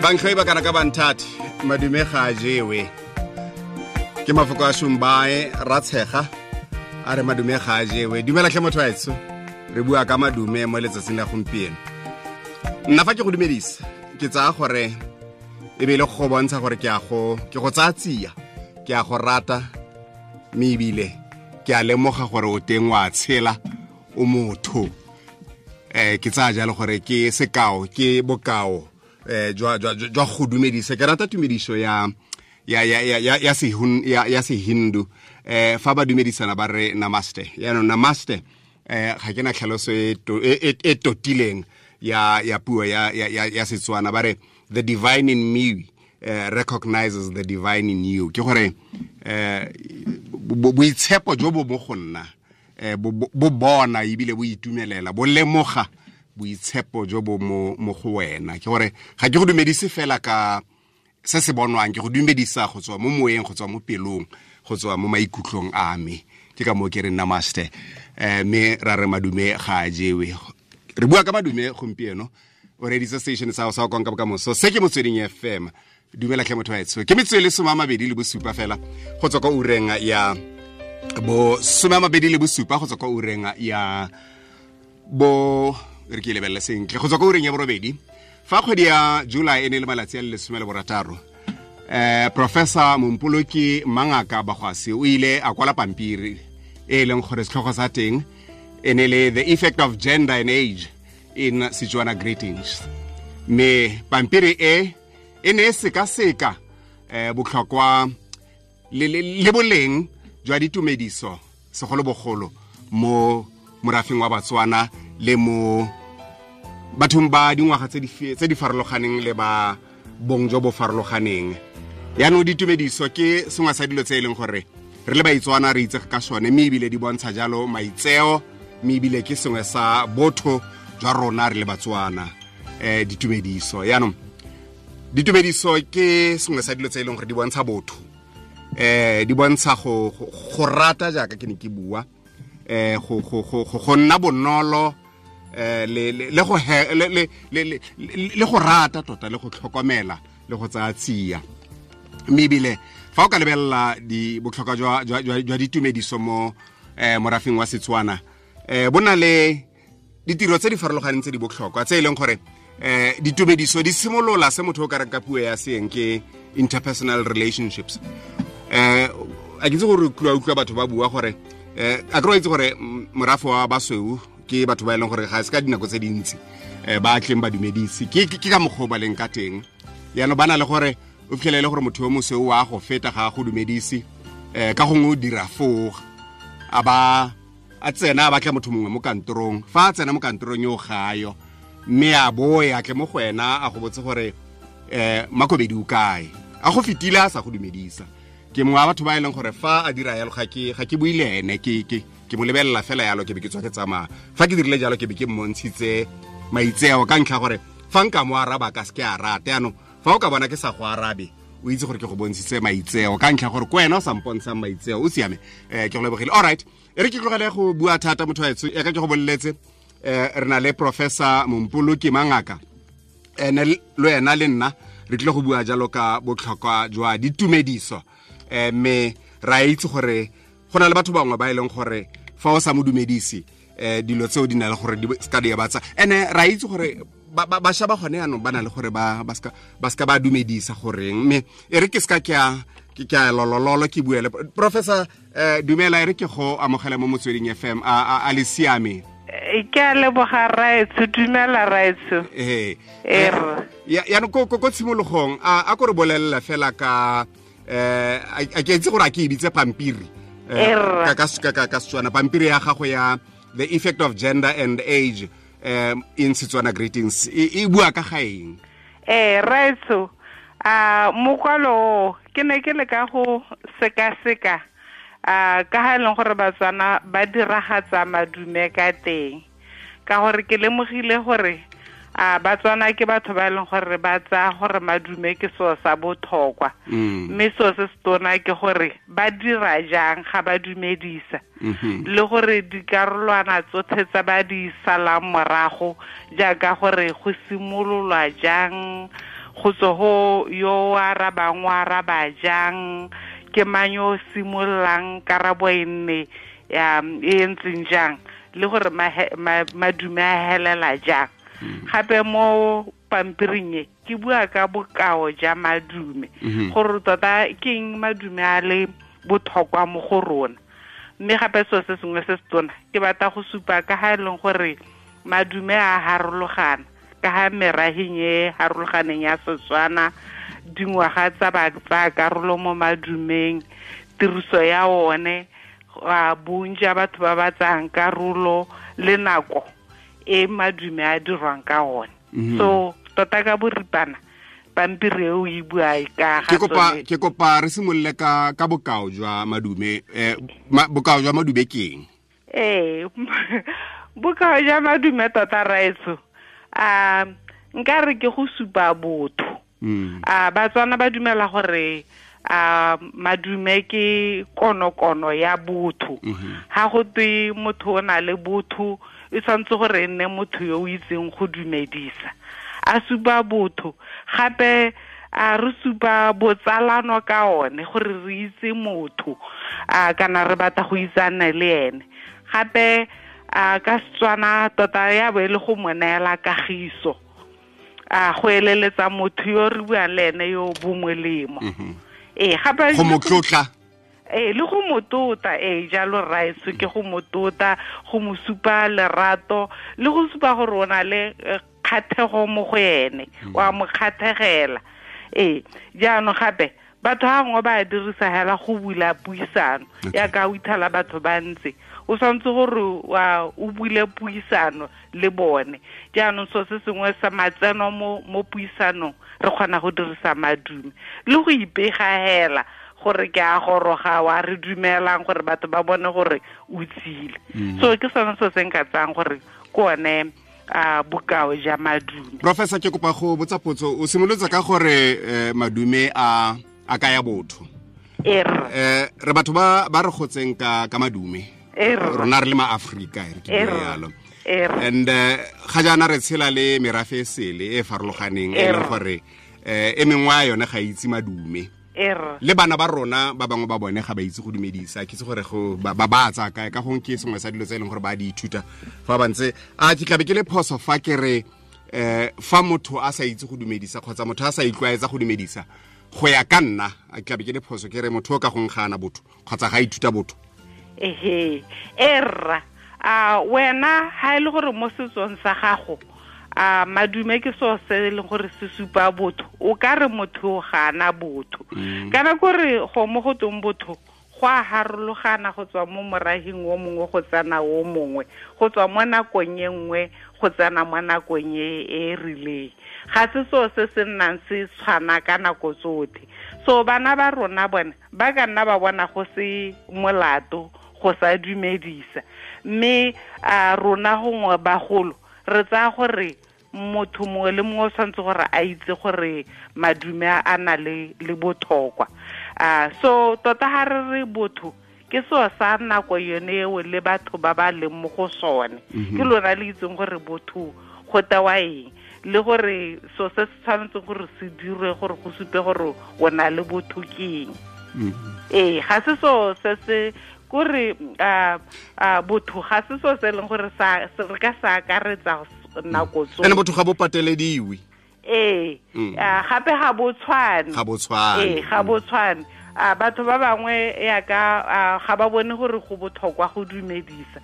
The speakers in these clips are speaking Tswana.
Bantlhoi ba kana ka banthati, madume ga a jewe. Ke mafoko a Shumbae Ratshega a re madume ga a jewe. Dumela tlhe motho wa etsho, re bua ka madume mo letsatsing la gompieno. Nna fa ke go dumedisa, ke tsaya gore e be le go bontsha gore ke a go ke go tsaya tsia, ke a go rata, mme ebile ke a lemoga gore o teng wa tshela, o motho. Ke tsaya jalo gore ke sekao, ke bokao jwa jwa jwa go dumedisa. Ke rata tumediso ya ya ya ya ya ya sehun ya ya sehindu, fa ba dumedisana ba re namaste. Yaanong namaste, ga ke na tlhaloso e e totileng ya ya puo ya ya ya Setswana. Ba re the divine in me recognizes the divine in you. Ke gore boitshepo jo bo mo go nna bo bona ebile bo itumelela, bo lemoga boitshepo jo bo mo go wena. Ke gore ga ke go dumedise fela ka se se bonwang, ke go dumedisa go tswa mo moeng, go tswa mo pelong, go tswa mo maikutlong a me. Ke ka moo ke re namaste. Mme ra re madume ga a jewe. Re bua ka madume gompieno. O reditse station sa sa Konka Bokamoso, se ke Motsweding FM. Dumela tlhe motho wa etsho. Ke metsotso e le 27 fela go tswa kwa ureng ya bo 27, go tswa kwa ureng ya bo, re ke lebelele sentle, go tswa kwa ureng ya borobedi. Fa kgwedi ya July e ne le malatsi a le 16, Professor Mompoloki Mangaka Bagwasi o ile a kwala pampiri e leng gore setlhogo sa teng e ne le The Effect of Gender and Age in Setswana Greetings. Mme pampiri e e ne e sekaseka botlhokwa le boleng jwa ditumediso, segolobogolo mo morafeng wa Batswana le mo bathong ba dingwaga tse di farologaneng le ba bong jo bo farologaneng. Yaanong ditumediso ke sengwe sa dilo tse e leng gore re le Baitswana re itsege ka sone, mme ebile di bontsha jalo maitseo, mme ebile ke sengwe sa botho jwa rona re le Batswana, ditumediso. Yaanong ditumediso ke sengwe sa dilo tse e leng gore di bontsha botho, di bontsha go rata, jaaka ke ne ke bua, go go go go nna bonolo, le le go le le le go rata tota, le go tlhokomela, le go tsaya tsia. Mme ebile fa o ka lebelela di botlhokwa jwa jwa ditumediso mo morafeng wa Setswana, bo na le ditiro tse di farologaneng tse di botlhokwa, tse e leng gore ditumediso di simolola se motho o ka reng ka puo ya seeng ke interpersonal relationships. A ke itse gore utlwa batho ba bua gore a ke itse gore morafe wa basweu ke batho ba e leng gore ga se ka dinako tse dintsi ba tleng ba dumedise. Ke ka mokgwa o ba leng ka teng. Yaanong ba na le gore o fitlhelele gore motho yo mosweu wa go feta ga go dumedise, ka gongwe o dira foo, a ba a tsena a batla motho mongwe mo kantorong. Fa a tsena mo kantorong yo gayo, mme a boe a tle mo go wena a go botse gore Makobedi o kae, a go fetile a sa go dumedisa. Ke mongwe wa batho ba e leng gore fa a dira yalo ga ke bue le ene, ke mo lebelela fela yalo, ke be ke tswa ke tsamaya. Fa ke dirile jalo, ke be ke mmontshitse maitseo, ka ntlha gore fa nka mo araba ka se ke a rate. Yaanong fa o ka bona ke sa go arabe, o itse gore ke go bontshitse maitseo, ka ntlha gore ko wena o sa mpontshang maitseo. O siame, ke go lebogile. All right, e re ke tlogele go bua thata, motho wa etsho. Ya ka ke go boleletse, re na le Professor Mompoloki Mangaka, ene le wena le nna re tlile go bua jalo ka botlhokwa jwa ditumediso. Mme ra itse gore go na le batho bangwe ba e leng gore fa o sa mo dumedise, dilo tseo di na le gore di ska di batsa. Ene ra itse gore bašwa ba gone yaanong ba na le gore ba ska ba dumedisa goreng. Mme e re ke ska ke a lolololo ke buele Professor. Dumela, e re ke go amogele mo Motsweding FM. A le siame? Ke a leboga, raetsho. Dumela, raetsho. Ee, yaanong ko tshimologong, a ko re bolelela fela ka a ke itse gore a ke e bitse pampiri ka Setswana, pampiri ya gago ya The Effect of Gender and Age in Setswana Greetings, e bua ka ga eng? Raetsho, a mokwalo ke ne ke le ka go sekaseka a ka ga e leng gore Batswana ba diragatsa madume ka teng, ka gore ke lemogile gore a Batswana ke batho ba e leng gore ba tsaya gore madume ke seo sa botlhokwa, mme seo se se tona ke gore ba dira jang ga ba dumedisa, le gore dikarolwana tsotlhe tsa ba di salang morago, jaaka gore go simololwa jang, Go tswa go yo o arabang, o araba jang, ke mang yo o simololang, karabo e nne e ntseng jang, le gore madume a helela jang. Gape mo pampiring e ke bua ka bokao ja madume, gore tota ke eng madume a le botlhokwa mo go rona. Mme gape selo se sengwe se se tona ke batla go supa ka ga e leng gore madume a harologana ka ga meraheng e harologaneng ya Setswana, dingwaga tsa ba tsaya karolo mo madumeng, tiriso ya one, bontsi ja batho ba ba tsayang karolo le nako e madume a dirwang ka one. So tota ka boripana pampiri eo e bua ka ga tsone. Ke kopa re simolole ka bokao jwa madume. Bokao jwa madume ke eng? Bokao jwa madume tota raetso, nka re ke go supa botho. Batswana ba dumela gore madume ke konokono ya botho. Ha go twe motho o na le botho, e tshwanetse gore e nne motho yo o itseng go dumedisa, a supa botho. Gape a re supa botsalano ka one, gore re itse motho, kana re batla go itsane le ene. Gape ka Setswana tota ya bo e le go mo neela kagiso, go eleletsa motho yo re buang le ene yo bo molemo. Gape go mo tlotla. Le go mo tota, jalo rraetsho, ke go mo tota, go mo supa lerato, le go supa gore o na le kgathego mo go ene, wa mo kgathegela. Jaanong gape batho ga gongwe ba dirisa hela go bula puisano, ya ka o ithala batho ba ntse, o tshwanetse gore o bule puisano le bone. Jaanong so se sengwe sa matseno mo puisanong re kgona go dirisa madume le go ipega hela gore ke a goroga, wa re dumelang gore batho ba bone gore o tsile. So ke sone se se nka tsayang gore ke one bokao ja madume. Professor, ke kopa go botsa potso. O simolotse ka gore madume a kaya botho. Re batho ba re gotseng ka madume. Rona re le ma-Afrika, re ke bua yalo. And ga jaana re tshela le merafe e sele e farologaneng, e leng gore e mengwe ya yone ga itse madume. Le bana ba rona ba bangwe ba bone ga ba itse go dumedisa. Ke itse gore go ba ba tsaya kae, ka gongwe ke sengwe sa dilo tse e leng gore ba di ithuta fa ba ntse. A ke tlabe ke le phoso fa ke re fa motho a sa itse go dumedisa kgotsa motho a sa itlwaetsa go dumedisa, go ya ka nna a ke tlabe ke le phoso ke re motho o ka gongwe ga ana botho kgotsa ga ithuta botho? Erra, wena ha e le gore mo setsong sa gago madume ke seo se e leng gore se supa botho, o ka re motho ga ana botho. Kana kore go mo go tong botho go a harologana go tswa mo moraheng o mongwe go tsena o mongwe, go tswa mo nakong e nngwe go tsena mo nakong e rileng. Ga se seo se se nnang se tshwana ka nako tsotlhe. So bana ba rona bone ba ka nna ba bona go se molato go sa dumedisa, mme rona gongwe bagolo re tsaya gore motho mongwe le mongwe o tshwanetse gore a itse gore madume a na le botlhokwa. So tota ha re re botho ke seo sa nako yone eo le batho ba ba leng mo go sone. Ke lona le itseng gore botho go tewa eng, le gore so se se tshwanetseng gore se dirwe gore go supe gore o na le botho ke eng. Ga se seo se se kore botho ga se seo se e leng gore re ka sa akaretsa nako tsotlhe. Ene botho ga bo patelediwe. Gape ga bo tshwane. Ga bo tshwane. Ga bo tshwane. Batho ba bangwe yaka ga ba bone gore go botlhokwa go dumedisa.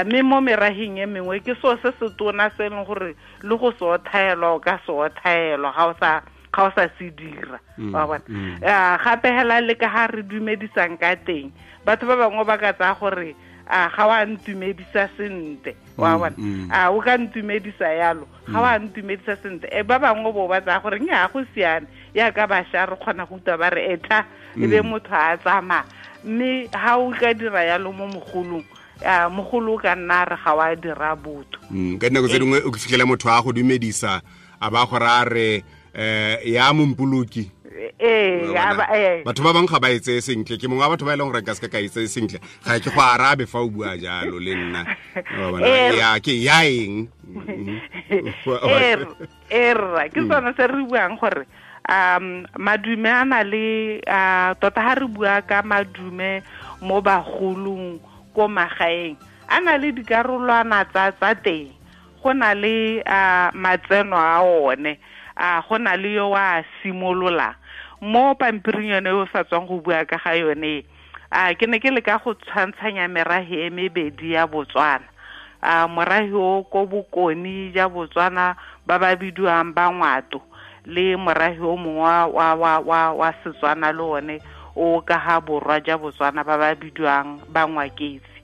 Mme mo meraheng e mengwe ke seo se se tona se e leng gore le go se othaelwa o ka se othaelwa ga o sa se dira. Wa bona. Gape hela le ka ga re dumedisang ka teng, batho ba bangwe ba ka tsaya gore ga wa ntumedisa sentle. Wa bona. O ka ntumedisa yalo, ga wa ntumedisa sentle. Ba bangwe bo ba tsaya gore nnyaa go siame, yaka bašwa re kgona go utlwa ba re etha, e be motho a tsamaya. Mme ha o ka dira yalo mo mogolong, mogolo o ka nna re ga wa dira botho. Ka dinako tse dingwe o fitlhela motho a go dumedisa a ba gore a re ya mompoloki. Ee, Batho ba bangwe ga ba e tseye sentle. Ke mongwe wa batho ba e leng gore nka se ka e tseye sentle. Ga ke go arabe fa o bua jalo le nna. Ya ke ya eng? Erra, ke sone se re buang gore madume a na le tota ha re bua ka madume mo bagolong ko magaeng a na le dikarolwana tsa teng. Go na le matseno a one, go na le yo wa simolola mo pampiring yone o sa tswang go bua ka ga yone. Ke ne ke leka go tshwantshanya merahe e mebedi ya Botswana. Morahe o ko bokoni ja Botswana ba ba bidiwang ba Ngwato, le morahe o mongwe wa Setswana le one o ka ha borwa ja Botswana ba ba bidiwang ba Ngwaketsi.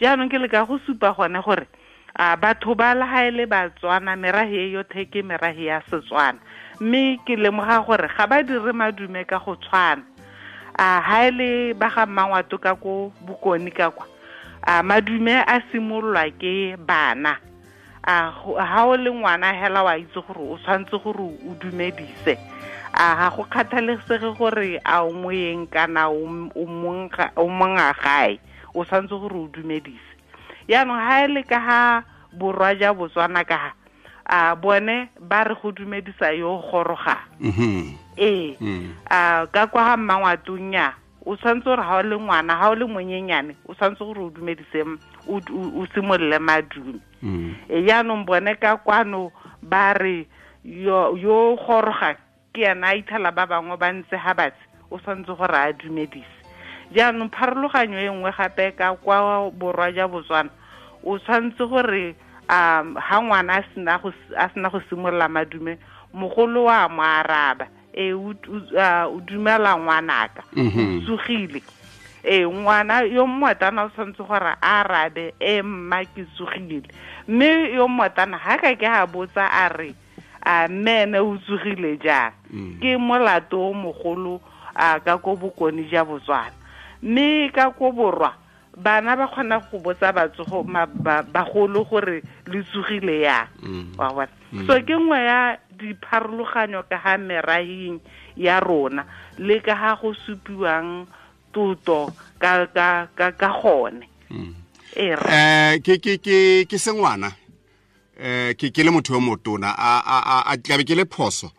Jaanong ke leka go supa gone gore batho ba la ha ele Batswana, merahe e yothe ke merahe ya Setswana, mme ke lemoga gore ga ba dire madume ka go tshwana. Ha ele ba ga Mmangwato ka ko bokoni ka kwa, madume a simololwa ke bana. Ha o le ngwana hela wa itse gore o tshwanetse gore o dumedise. Ga go kgathalesege gore a o moyeng kana o monga gae, o tshwanetse gore o dumedise. Jaanong ha ele ka ha borwa ja Botswana ka ha, bone ba re go dumedisa yo goroga. Ee, ka kwa ga Mmangwatong ya o tshwanetse gore ha o le ngwana, ha o le monyenyane, o tshwanetse gore o dumedise, o simolole madume. Jaanong bone ka kwano ba re yo goroga ke ena a ithala ba bangwe ba ntse ha batse, o tshwanetse gore a dumedise. Jaanong pharologanyo e nngwe gape ka kwa borwa ja Botswana, o tshwanetse gore ha ngwana a sena go simolola madume, mogolo wa mo araba, o dumela ngwanaka, o tsogile. Ngwana yo mmotana o tshwanetse gore a arabe, mma ke tsogile. Mme yo mmotana ha ka ke a botsa a re, mme ene o tsogile jang? Ke molato o mogolo ka ko bokoni ja Botswana. Mme ka ko borwa bana ba kgona go botsa batsogo bagolo gore le tsogile yang. Wa bona? So ke nngwe ya dipharologanyo ka ga merahing ya rona le ka ga go supiwang tuto ka gone. Ke sengwana, ke le motho yo motona, a tlabe ke le phoso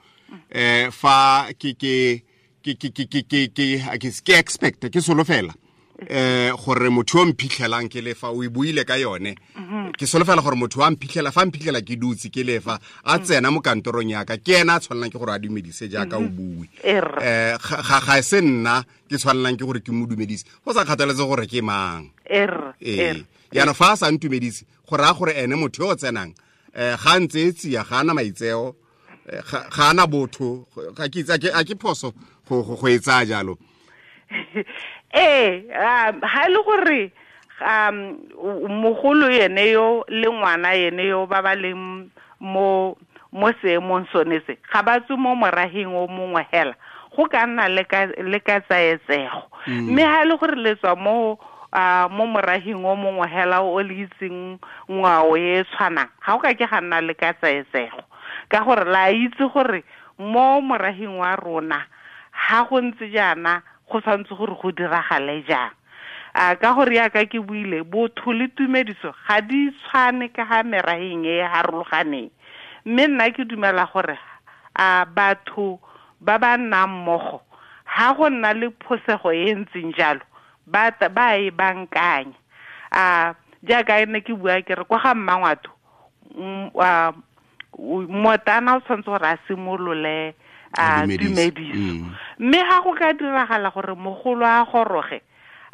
fa ke expect ke solofela gore motho yo mphitlhelang ke lefa o e buile ka yone, ke solofela gore motho wa mphitlhela fa mphitlhela ke dutse ke lefa a tsena mo kantorong ya ka, ke ena a tshwanelang ke gore a dumedise jaaka o bue. Ga se nna ke tshwanelang ke gore ke mo dumedise, go sa kgathaletse gore ke mang. Jaanong fa a sa ntumedise, go raya gore ene motho yo o tsenang ga ntse e tsia, ga ana maitseo, ga ana botho, ga ke itse, a ke phoso go e tsaya jalo. Ha le gore mogolo yene yo le ngwana yene yo ba ba leng mo seemong sone se, ga ba tswe mo moraheng o mongwe hela, go ka nna le ka tsaetsego. Mme ha le gore le tswa mo moraheng o mongwe hela o le itseng ngwao e tshwanang, ga o ka ke ga nna le ka tsaetsego, ka gore la itse gore mo moraheng wa rona ha go ntse jaana go tshwanetse gore go diragale jang. Ka gore yaka ke buile, botho le tumediso ga di tshwane ka ga meraheng e harologaneng. Mme nna ke dumela gore batho ba ba nnang mmogo ha go nna le phosego e ntseng jalo, ba e bankanya. Jaaka ne ke bua ke re kwa ga Mmangwato, motana o tshwanetse gore a simolole dumediso. Mme ha go ka diragala gore mogolo a goroge,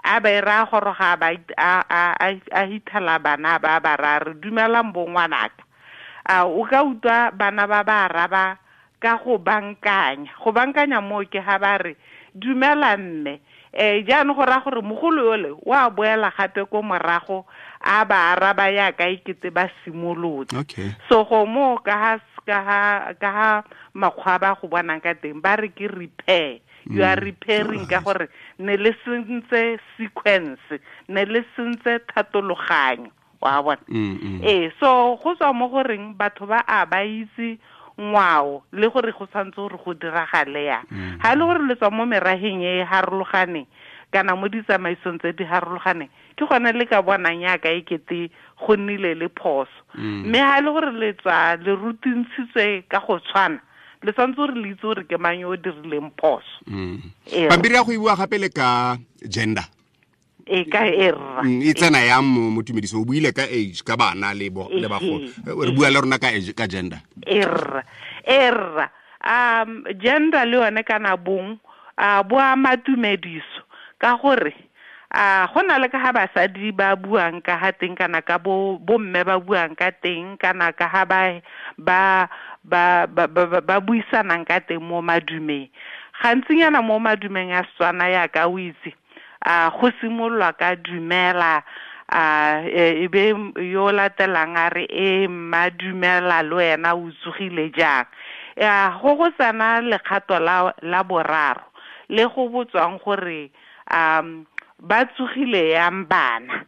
a ba ira goroga ba a hithala bana ba ba ra re dumelang bo ngwanaka. O ka utlwa bana ba ba araba ka go bankanya. Go bankanya mo ke ha ba re dumela mme. Jaanong go raya gore mogolo yole wa boela gape ko morago a ba araba yaka ikete ba simolotse. So go mo ka ha makgwa ba go bonang ka teng ba re ke repair. You are repairing ka gore ne le sentse sequence, ne le sentse thatologanyo, wa bona. So go tswa mo goreng batho ba a ba itse Ngwao le gore go tshwanetse gore go diragale yang. Ga e le gore le tswa mo meraheng e e harologaneng kana mo ditsamaisong tse di harologaneng, ke gone le ka bonang yaka e kete go nnile le phoso. Mme ga e le gore le tswa le rutintshitswe ka go tshwana, le tshwanetse gore le itse gore ke mang yo o dirileng phoso. Pampiri ya go e bua gape le ka gender. E ka e rra. E tsena yang mo tumediso? O buile ka age, ka bana le le bagolo. Re bua le rona ka age, ka gender. E rra. E rra. Gender le yone kana bong, bo ama tumediso ka gore go na le ka ha basadi ba buang ka ha teng kana ka bo mme ba buang ka teng kana ka ha ba buisanang ka teng mo madumeng. Gantsinyana mo madumeng a Setswana ya ka o itse, go simololwa ka dumela, e be yo latelang a re e mma dumela le wena o tsogile jang. Go tsena lekgato la boraro le go botswang gore ba tsogile yang bana.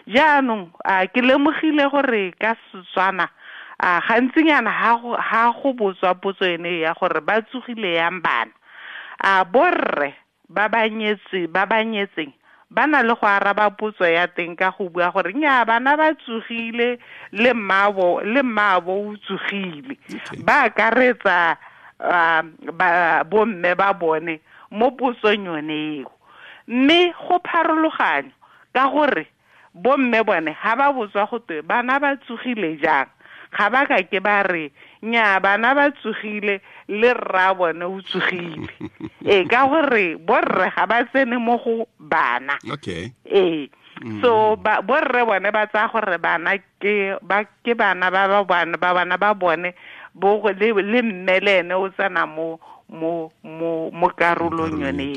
Jaanong ke lemogile gore ka Setswana gantsinyana ha go botswa potso ene ya gore ba tsogile yang bana, borre ba ba nyetseng ba na le go araba potso ya teng ka go bua gore nya bana ba tsogile le mmaabo o tsogile. Ba akaretsa bomme ba bone mo potsong yone eo. Mme go pharologanyo ka gore bomme bone ha ba botswa go twe bana ba tsogile jang, ga ba ka ke ba re nya bana ba tsogile le rra bone o tsogile. Ka gore borre ga ba tsene mo go bana. Okay. So borre bone ba tsaya gore bana ke bana ba bana ba bone bo le mme le ene o tsena mo karolong yone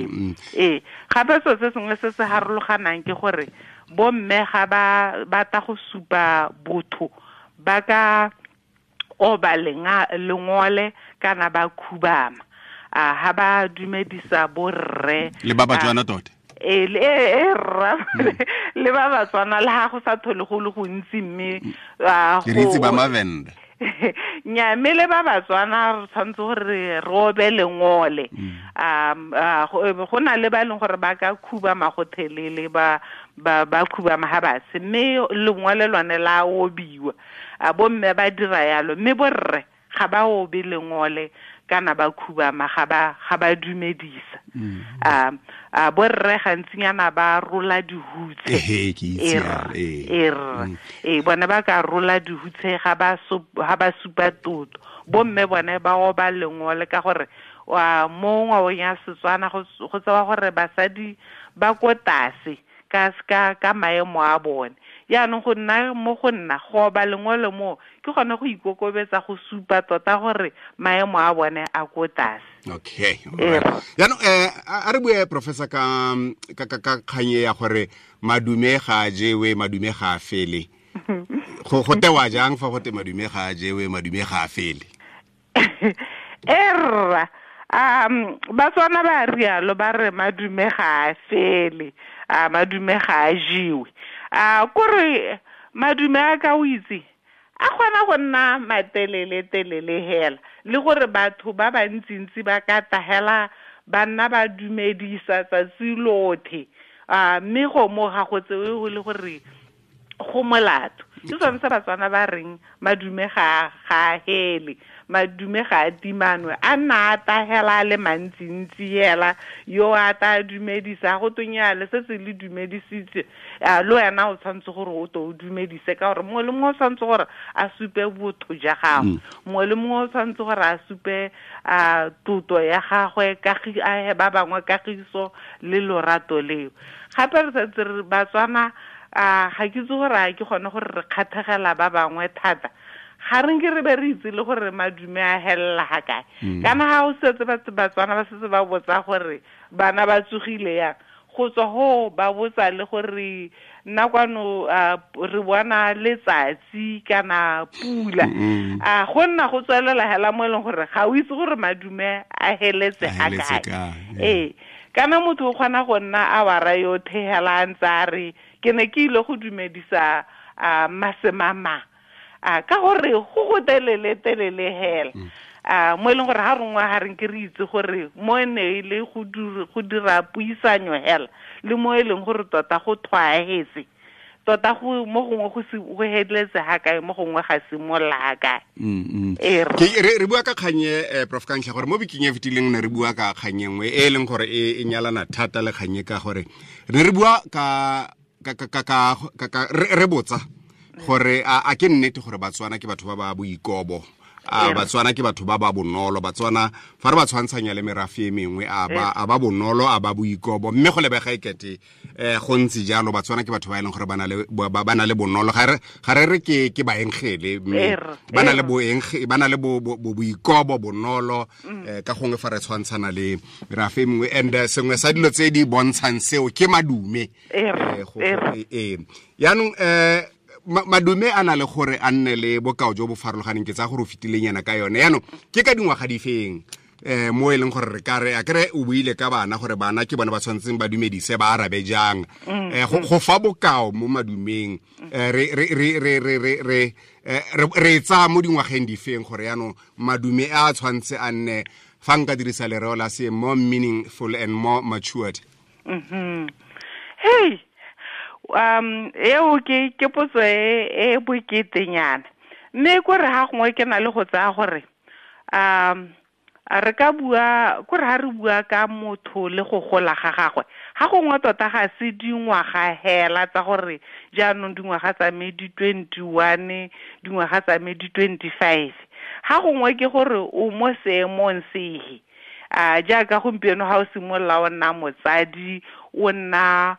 eo. Gape selo se sengwe se se harologanang ke gore bomme ga ba batla go supa botho ba ka oba lengole kana ba khubama ha ba dumedisa borre le ba Batswana tota. Rra le ba Batswana le ha go sa thole go le gontsi mme ke re itse ba Mavenda. Nya mme le ba Batswana re tshwanetse gore re obe lengole. Go na le ba e leng gore ba ka khubama go thelele ba khubama ha batse, mme lengole lone la obiwa. Bomme ba dira yalo, mme borre ga ba obe lengole kana ba khubama ga ba dumedisa. Borre gantsinyana ba rola dihutse. Bone ba ka rola dihutse ga ba supa toto. Bomme bone ba oba lengole ka gore mo ngwaong ya Setswana go tsewa gore basadi ba ko tlase ka maemo a bone. Jaanong go nna mo go nna go oba lengole mo ke gone go ikokobetsa go supa tota gore maemo a bone a ko tlase. Okay. Jaanong a re bue professor ka kganye ya gore madume ga a jewe, madume ga a fele. Go tewa jang fa go te madume ga a jewe, madume ga a fele? Erra, Batswana ba rialo ba re madume ga a fele, madume ga a jewe. Kore madume a ka o itse a kgona go nna matelele telele hela, le gore batho ba bantsintsi ba ka tahela ba nna ba dumedisa tsatsi lothe, mme go mo ga go tsewe go le gore go molato. Ke sone se Batswana ba reng madume ga a hele, madume ga a timanwe, a nna a tahela a le mantsintsi hela, yo a ta dumedisa go tonya le se se le dumedisitse, le wena o tshwanetse gore o to o dumedise ka gore mongwe le mongwe o tshwanetse gore a supe botho ja gagwe, mongwe le mongwe o tshwanetse gore a supe toto ya gagwe, ba bangwe kagiso le lorato leo. Gape re santse re Batswana ga ke itse gore a ke gone gore re kgathegela ba bangwe thata, ga re nke re be re itse le gore madume a helela ga kae. Kana ga o setse Batswana ba setse ba botsa gore bana ba tsogile yang, go tswa ho ba botsa le gore nna kwano re bona letsatsi kana pula. Go nna go tswelela hela mo e leng gore ga o itse gore madume a heletse ga kae. Kana motho o kgona go nna a wara yothe hela a ntse a re ke ne ke ile go dumedisa masemama. A ka gore go go telele telele hela. A mo e leng gore ha rongwa ha re nke re itse gore mo ne e le go dira puisanyo hela le mo e leng gore tota go thwaetse tota go mo gongwe go se go heletse ha kae mo gongwe ga simolla ha kae. Ke re bua ka kganye, Prof Kgantlha, gore mo bekeng e fetileng ne re bua ka kganye nngwe e leng gore e nyalana thata le kganye, ka gore re re bua ka ka ka ka ka re botsa gore a ke nnete gore Batswana ke batho ba ba boikobo, a Batswana ke batho ba ba bonolo, Batswana fa re ba tshwantshanya le merafe e mengwe a ba bonolo, a ba boikobo, mme go lebega ekete go ntse jalo. Batswana ke batho ba e leng gore ba na le bonolo, ga re ke baengele, mme ba na le ba na le boikobo, bonolo, ka gongwe fa re tshwantshana le merafe e mengwe. And sengwe sa dilo tse di bontshang seo ke madume. Yaanong madume a na le gore a nne le bokao jo bo farologaneng, ke tsa gore o fetileng yana ka yone. Yaanong ke ka dingwaga di feng mo e leng gore re ka re a kere o buile ka bana gore bana ke bone ba tshwanetseng ba dumedise, ba arabe jang, go fa bokao mo madumeng, re tsaya mo dingwageng di feng gore yaanong madume a tshwanetse a nne, fa nka dirisa lereo la se, more meaningful and more matured? Hey, eo ke potso e boketenyana, mme kore ha gongwe ke na le go tsaya gore re ka bua kore ha re bua ka motho le go gola ga gagwe, ga gongwe tota ga se dingwaga hela tsa gore jaanong dingwaga tsa me di 21, dingwaga tsa me di 25, ga gongwe ke gore o mo seemong sehe. A jaaka gompieno ha o simolola o nna motsadi, o nna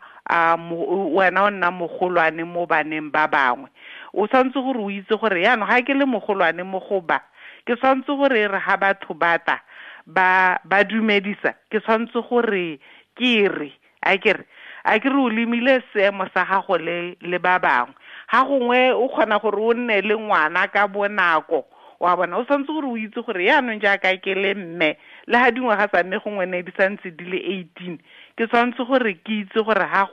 wena o nna mogolwane mo baneng ba bangwe, o tshwanetse gore o itse gore yaanong ga ke le mogolwane mo go ba, ke tshwanetse gore re ha batho bata ba dumedisa, ke tshwanetse gore ke re a ke re o lemile seemo sa gago le ba bangwe. Ga gongwe o kgona gore o nne le ngwana ka bonako, wa bona, o tshwanetse gore o itse gore yaanong jaaka ke le mme, le ha dingwaga tsa mme gongwe ne di santse di le 18, ke tshwanetse gore ke itse gore ha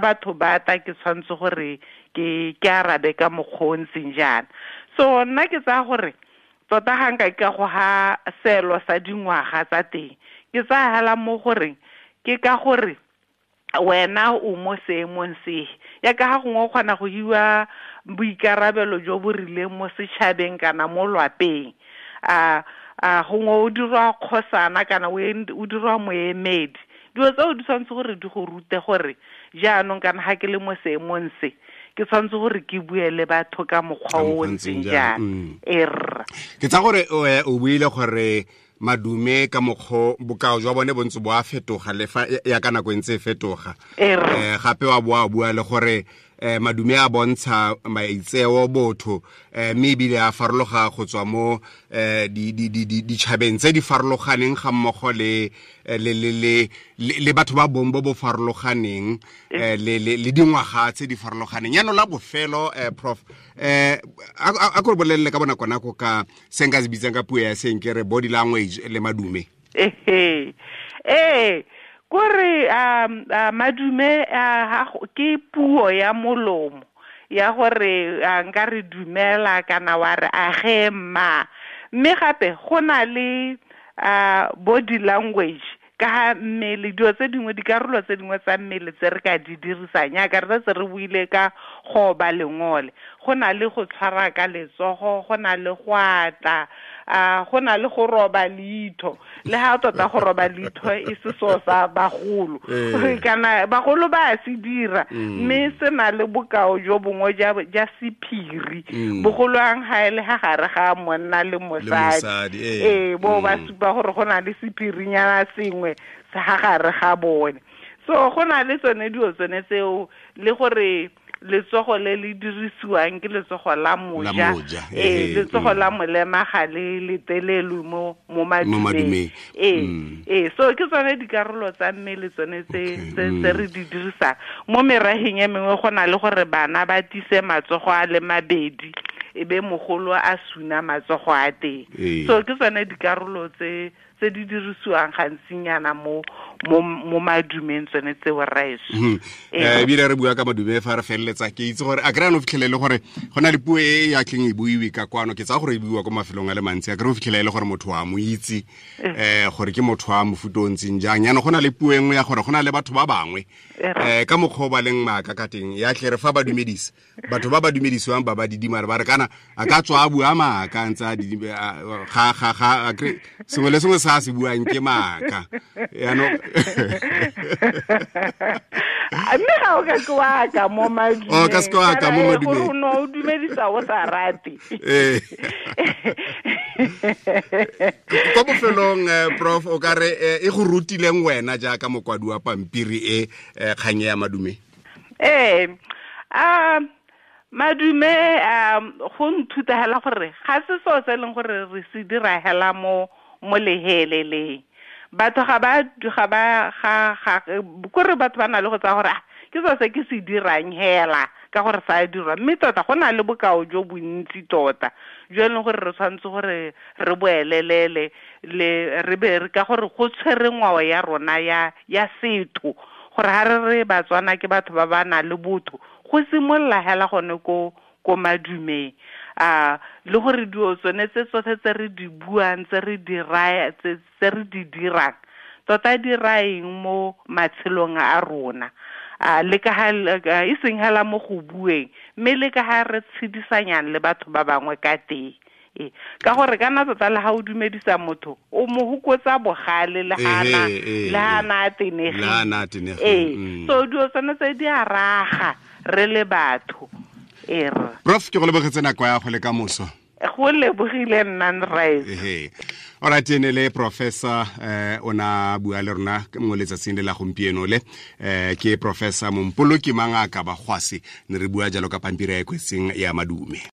batho ba ta, ke tshwanetse gore ke arabe ka mokgwa o ntseng jaana. So nna ke tsaya gore tota ga nka ka go ha seelo sa dingwaga tsa teng, ke tsaya hela mo goreng ke ka gore wena o mo seemong se, ya ka ga gongwe o kgona go hiwa boikarabelo jo bo rileng mo setšhabeng kana mo lwapeng, a gongwe o dirwa kgosana kana o dirwa moemedi, dilo tseo di tshwanetse gore di go rute gore jaanong kana ga ke le mo seemong se, ke tshwanetse gore ke bue le batho ka mokgwa o ntseng jaana. Ke tsa gore o buile gore madume ka mokgwa bokao jwa bone bontse bo a fetoga le fa ya ka nako e ntse e fetoga. Gape wa boa bua le gore madume a bontsha maitseo botho, mme ebile a farologa go tswa mo ditšhabeng tse di farologaneng ga mmogo le batho ba bong bo bo farologaneng, le dingwaga tse di farologaneng. Yaanong la bofelo, Prof, a ko re bolelele ka bonako nako ka se nka se bitsang ka puo ya seng ke re body language le madume. Kore madume ke puo ya molomo ya gore nka re dumela kana wa re age mma, mme gape go na le body language ka ha mmele, dilo tse dingwe, dikarolo tse dingwe tsa mmele tse re ka di dirisang, yaka re setse re buile ka go ba lengole, go na le go tshwara ka letsogo, go na le go atla, go na le go roba leitho, le ha tota go roba leitho e se so sa bagolo, kana bagolo ba se dira, mme se na le bokao jo bongwe ja sephiri, bogolwang ha e le ha gare ga monna le mosadi, bo ba supa gore go na le sephirinyana sengwe sa ha gare ga bone. So go na le tsone dilo tsone tseo, le gore letsogo le le dirisiwang ke letsogo la moja, letsogo la molema ga le letelelwe mo madumeng. So ke tsone dikarolo tsa mmele tsone tse re di dirisang. Mo meraheng e mengwe go na le gore bana ba tise matsogo a le mabedi, e be mogolo a suna matsogo a teng. So ke tsone dikarolo tse di dirisiwang gantsinyana mo madumeng tsone tseo rraetsho. Ebile re bua ka madume fa re feleletsa, ke itse gore a kry-a no fitlhele le gore go na le puo e ya tleng e buiwe ka kwano, ke tsaya gore e buiwa ko mafelong a le mantsi, a kry o fitlhele e le gore motho wa mo itse gore ke motho wa mofuta o ntseng jang. Yaanong go na le puo e nngwe ya gore go na le batho ba bangwe ka mokgwa o ba leng maaka ka teng, ya tle re fa ba dumedisa batho ba ba dumedisiwang ba ba didimare ba re kana a ka tswa a bua maaka ntse a ga ga ga sengwe le sengwe sa se buang ke maaka. Yaanong mme ga o ka ke wa ka mo madumeng, o ka se wa ka mo madumeng, o no o dumedisa o sa rate. Kwa bofelong Prof, o ka re e go rutileng wena jaaka mokwadi wa pampiri e kgang ya madume? Madume go nthuta hela gore ga se so se leng gore re se dira hela mo leheleleng. Batho ga ba kore batho ba na le go tsaya gore ke so se ke se dirang hela ka gore sa dirwa, mme tota go na le bokao jo bontsi tota jo e leng gore re tshwanetse gore re boelelele le re be ka gore go tshwere ngwao ya rona ya setho, gore ha re re Batswana ke batho ba ba nang le botho, go simolola hela gone ko madumeng. Le gore dio tsone tse tsotlhe tse re di buang, tse re di raya, tse re di dirang tota di raeng mo matshelong a rona, le ka ha e seng hela mo go bueng, mme le ka ha re tshedisanyang le batho ba bangwe ka teng. Ka gore kana tota le ha o dumedisa motho o mo hokotsa bogale le hana a tenegile. So dio tsone tse di a raga re le batho. Prof, ke go lebogetse nako ya go le ka moso. Go lebogile nna nraetso. Alright, ene le professor o na bua le rona mo letsatsing le la gompieno le ke Professor Mompoloki Mangaka Bagwasi, ne re bua jalo ka pampiri e kwetseng ya madume.